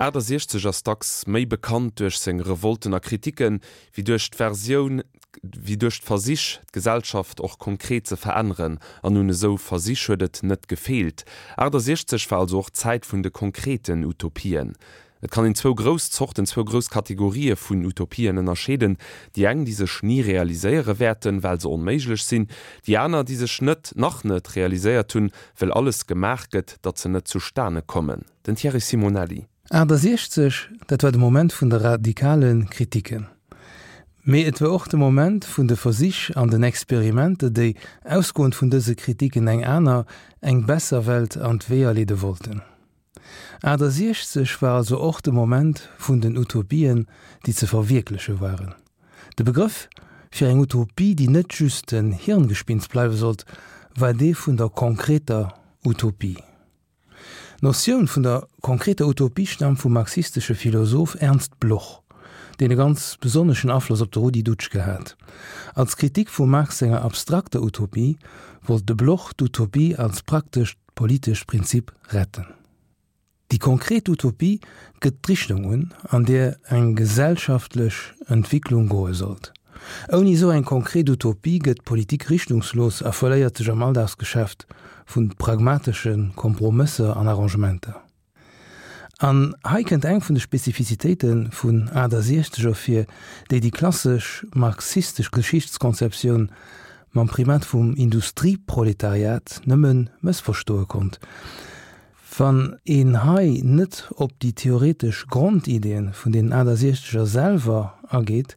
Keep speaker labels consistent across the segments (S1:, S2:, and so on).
S1: 68 ass dacks méi bekannt duerch seng Revolten a Kriticken, wéi duerch d'Versioun, wéi duerch d'Versich, d'Gesellschaft och konkret ze veränneren. An un esou Versich huet et net gefeelt. 68 war also och d'Zäit vun de konkreten Utopien. Et kann een zwou grouss Zorten, zwou grouss Kategorië vun Utopien ënnerscheeden, déi eng, déi sech ni realiséiere wäerten, well se onméiglech sinn, déi aner, déi sech net, nach net realiséiert hunn, well alles gemaach gëtt, datt se net zustane kommen. Den Thierry Simonelli.
S2: 68, dat war de Moment vun de radikale Kritiken. Mee et war och de Moment vun de Versich an den Experimenter, déi, ausgoend vun dëse Kritiken, eng aner, eng besser Welt an d'Weeër leede wollten. 68 war also och de Moment vun den Utopien, déi ze verwierkleche waren. De Begrëff fir eng Utopie, déi net just en Hirngespinst bleiwe sollt, war dee vun der konkreter Utopie. D'Notioun vun der konkreter Utopie staamt vum marxistesche Philosoph Ernst Bloch, deen e ganz besonneschen Afloss op de Rudi Dutschke hat. Als Kritik vum Marx senger abstrakter Utopie wollt de Bloch d'Utopie als praktescht politescht Prinzip retten. Déi konkret Utopie gëtt d'Richtung un, an där eng gesellschaftlech Entwicklung goe sollt. Ouni esou eng konkret Utopie gëtt d'Politik richtungslos a verléiert sech am Alldagsgeschäft vu pragmatesche Kompromësser an Arrangementer. An hei kënnt eng vun de Spezifizitéite vun 68 ervir, déi déi klassesch marxistesch Geschichtskonzeptioun mam Primat vum Industrieproletariat nëmme mëssverstoe konnt. Wann een hei net op déi theoretesch Grondideeën vun den 68er selwer ageet,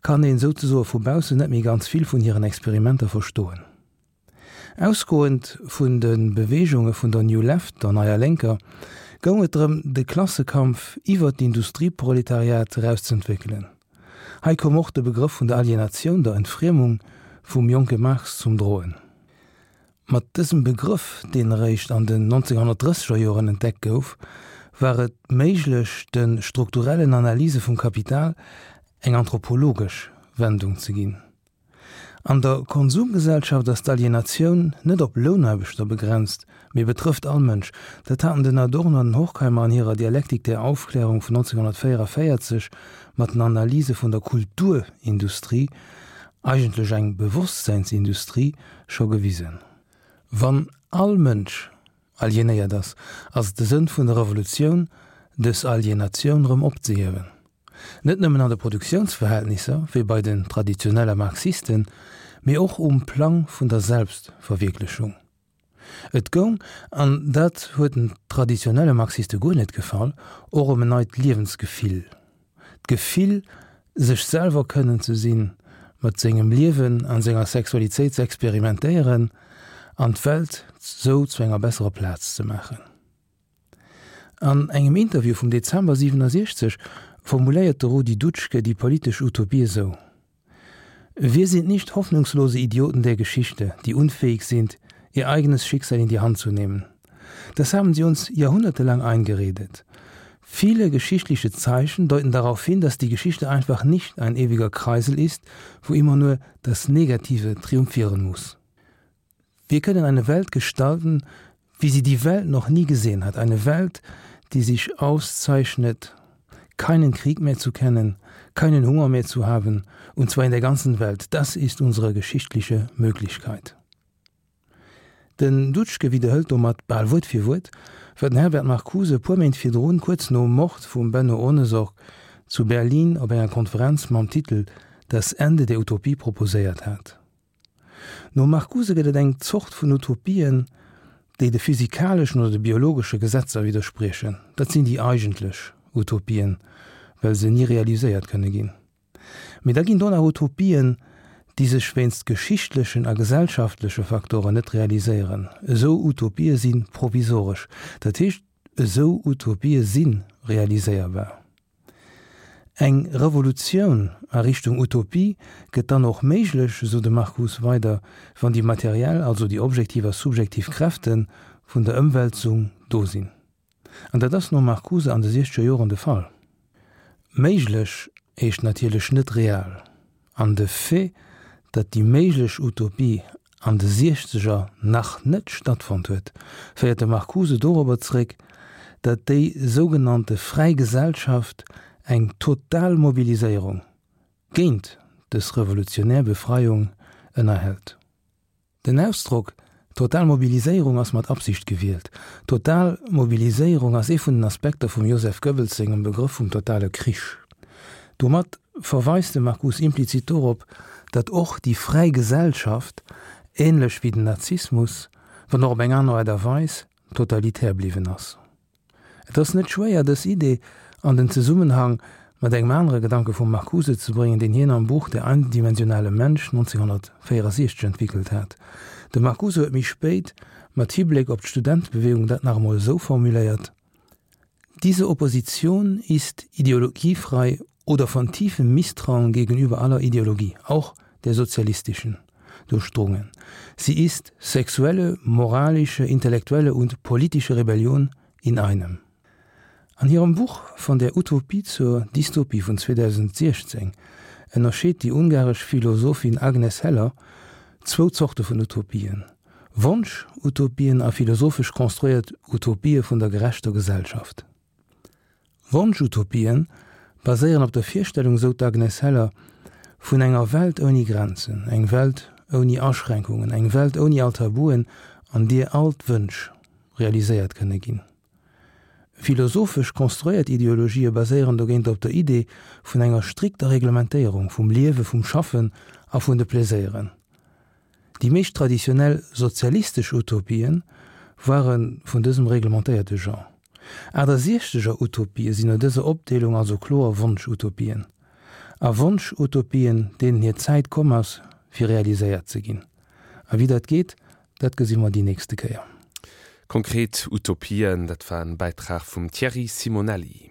S2: kann een souzesoe vu baussen net méi ganz vill vun hiren Experimenter verstoen. Ausgoend vun de Beweegunge vun der New Left, der Neier Lénker, goung et drëm, de Klassekampf iwwer d'Industrieproletariat eraus z'entwéckelen. Hei koum och de Begrëff vun der Alienatioun, der Entfriemung vum jonke Marx zum Droen. Mat dësem Begrëff, deen eréischt an den 1930er Joren entdeckt gouf, war et méiglech, de strukturellen Analyse vum Kapital eng anthropologesch Wendung ze ginn. An der Konsumgesellschaft ass d'Alienatioun net op Lounaarbechter begrenzt, mee betrëfft all Mënsch. Dat haten den Adorno an den Horkheimer an hirer Dialektik der Aufklärung vun 1944 mat den Analyse vun der Kulturindustrie, eigentlech eng Bewosstseinsindustrie, scho gewisen. Wann all Mënsch alienéiert ass, ass et de Sënn vun der Revolutioun, dës Alienatioun erëm opzehiewen. Net nëmmen an de Produktiounsverhältnisser, wéi bei den traditionelle Marxisten, mee och um Plang vun der Selbstverwierklechung. Et goung, an dat huet den traditionelle Marxiste guer net gefall, och ëm en neit Liewensgefill, d'Gefill, sech selwer kënnen ze sinn, mat sengem Liewen an senger Sexualitéit ze experimentéieren an d'Welt sou zu enger besserer Plaz ze maachen. An engem Interview vum Dezember 67 formuléiert de Rudi Dutschke déi politesch Utopie esou, Wir sind nicht hoffnungslose Idioten der Geschichte, die unfähig sind, ihr eigenes Schicksal in die Hand zu nehmen. Das haben sie uns jahrhundertelang eingeredet. Viele geschichtliche Zeichen deuten darauf hin, dass die Geschichte einfach nicht ein ewiger Kreisel ist, wo immer nur das Negative triumphieren muss. Wir können eine Welt gestalten, wie sie die Welt noch nie gesehen hat, eine Welt, die sich auszeichnet, keinen Krieg mehr zu kennen, keinen Hunger mehr zu haben, und zwar in der ganzen Welt. Das ist unsere geschichtliche Möglichkeit. Den Dutschke widderhëlt domat bal Wuert fir Wuert, wat den Herbert Marcuse e puer Méint virdrun, kuerz nom Mord vum Benno Ohnesorg, zu Berlin op enger Konferenz mam Titel Das Ende der Utopie proposéiert hat. Nom Marcuse gëtt et eng Zort vun Utopien, déi de physikaleschen oder de biologesche Gesetzer widderspriechen. Dat sinn déi eigentlech Utopien, well se ni realiséiert kënne ginn. Mee da ginn do nach Utopien, déi sech wéinst geschichtlechen a gesellschaftleche Faktoren net realiséieren. Esou Utopië si provisoresch, dat heescht, esou Utopië si realiséierbar. Eng Revolutioun a Richtung Utopie gëtt dann och méiglech, esou de Marcuse weider, wann déi materiell, also déi objektiv a subjektiv Kräfte vun der Ëmwälzung do sinn. An dat ass nom Marcuse an de siechzeger Joren de Fall. Méiglech heescht natierlech net real. An de Fait, datt déi méiglech Utopie an de Siechzeger nach net stattfonnt huet, féiert de Marcuse dorobber zeréck, datt déi sougenannte fräi Gesellschaft eng total Mobiliséierung géint dës revolutionär Befreiung ënnerhält. Den Ausdrock total Mobiliséierung ass mat Absicht gewielt. Total Mobiliséierung ass ee vun den Aspekter vum Joseph Goebbels sengem Begrëff vum totale Krich. Domat verweist de Marcuse implizit dorop, datt och déi fräi Gesellschaft, änlech wéi den Nazismus, wann och op eng aner Aart a Weis, totalitär bliwwen ass. Et ass net schwéier, dës Idee an den Zesummenhang mat engem anere Gedanke vum Marcuse ze bréngen, deen hien am Buch Der eindimensionale Mensch 1964 entwickelt hat. De Marcuse huet méi spéit mat Hibléck op d'Studentebewegung dat nach emol esou formuléiert, Diese Opposition ist ideologiefrei oder von tiefem Misstrauen gegenüber aller Ideologie, auch der sozialistischen, durchdrungen. Sie ist sexuelle, moralische, intellektuelle und politische Rebellion in einem. An hirem Buch Von der Utopie zur Dystopie vun 2016 ënnerscheet déi ungaresch Philosophin Agnes Heller zwou Zorte vun Utopien, Wonsch-Utopien a philosophesch konstruéiert Utopië vun der gerechter Gesellschaft. Wonsch-Utopien baséieren op der Virstellung, sou d'Agnes Heller, vun enger Welt ouni Grenzen, eng Welt ouni Aschränkungen, eng Welt ouni all Tabuen, an deer all d'Wënsch realiséiert kënne ginn. Philosophesch konstruéiert Ideologië baséieren dogéint op der Idee vun enger strikter Reglementéierung vum Liewe, vum Schaffen a vun de Pleséieren. Déi meescht traditionell sozialistesch Utopien ware vun dësem reglementéierte Genre. Achtasiechzeger Utopië sinn no dëser Opdeelung also kloer Wonsch-Utopien. A Wonsch-Utopien, deenen hir Zäit komm ass, fir realiséiert ze ginn. A wéi dat geet, dat gesi mer déi nächste Kéier.
S1: Konkret Utopien, dat war en Bäitrag vum Thierry Simonelli.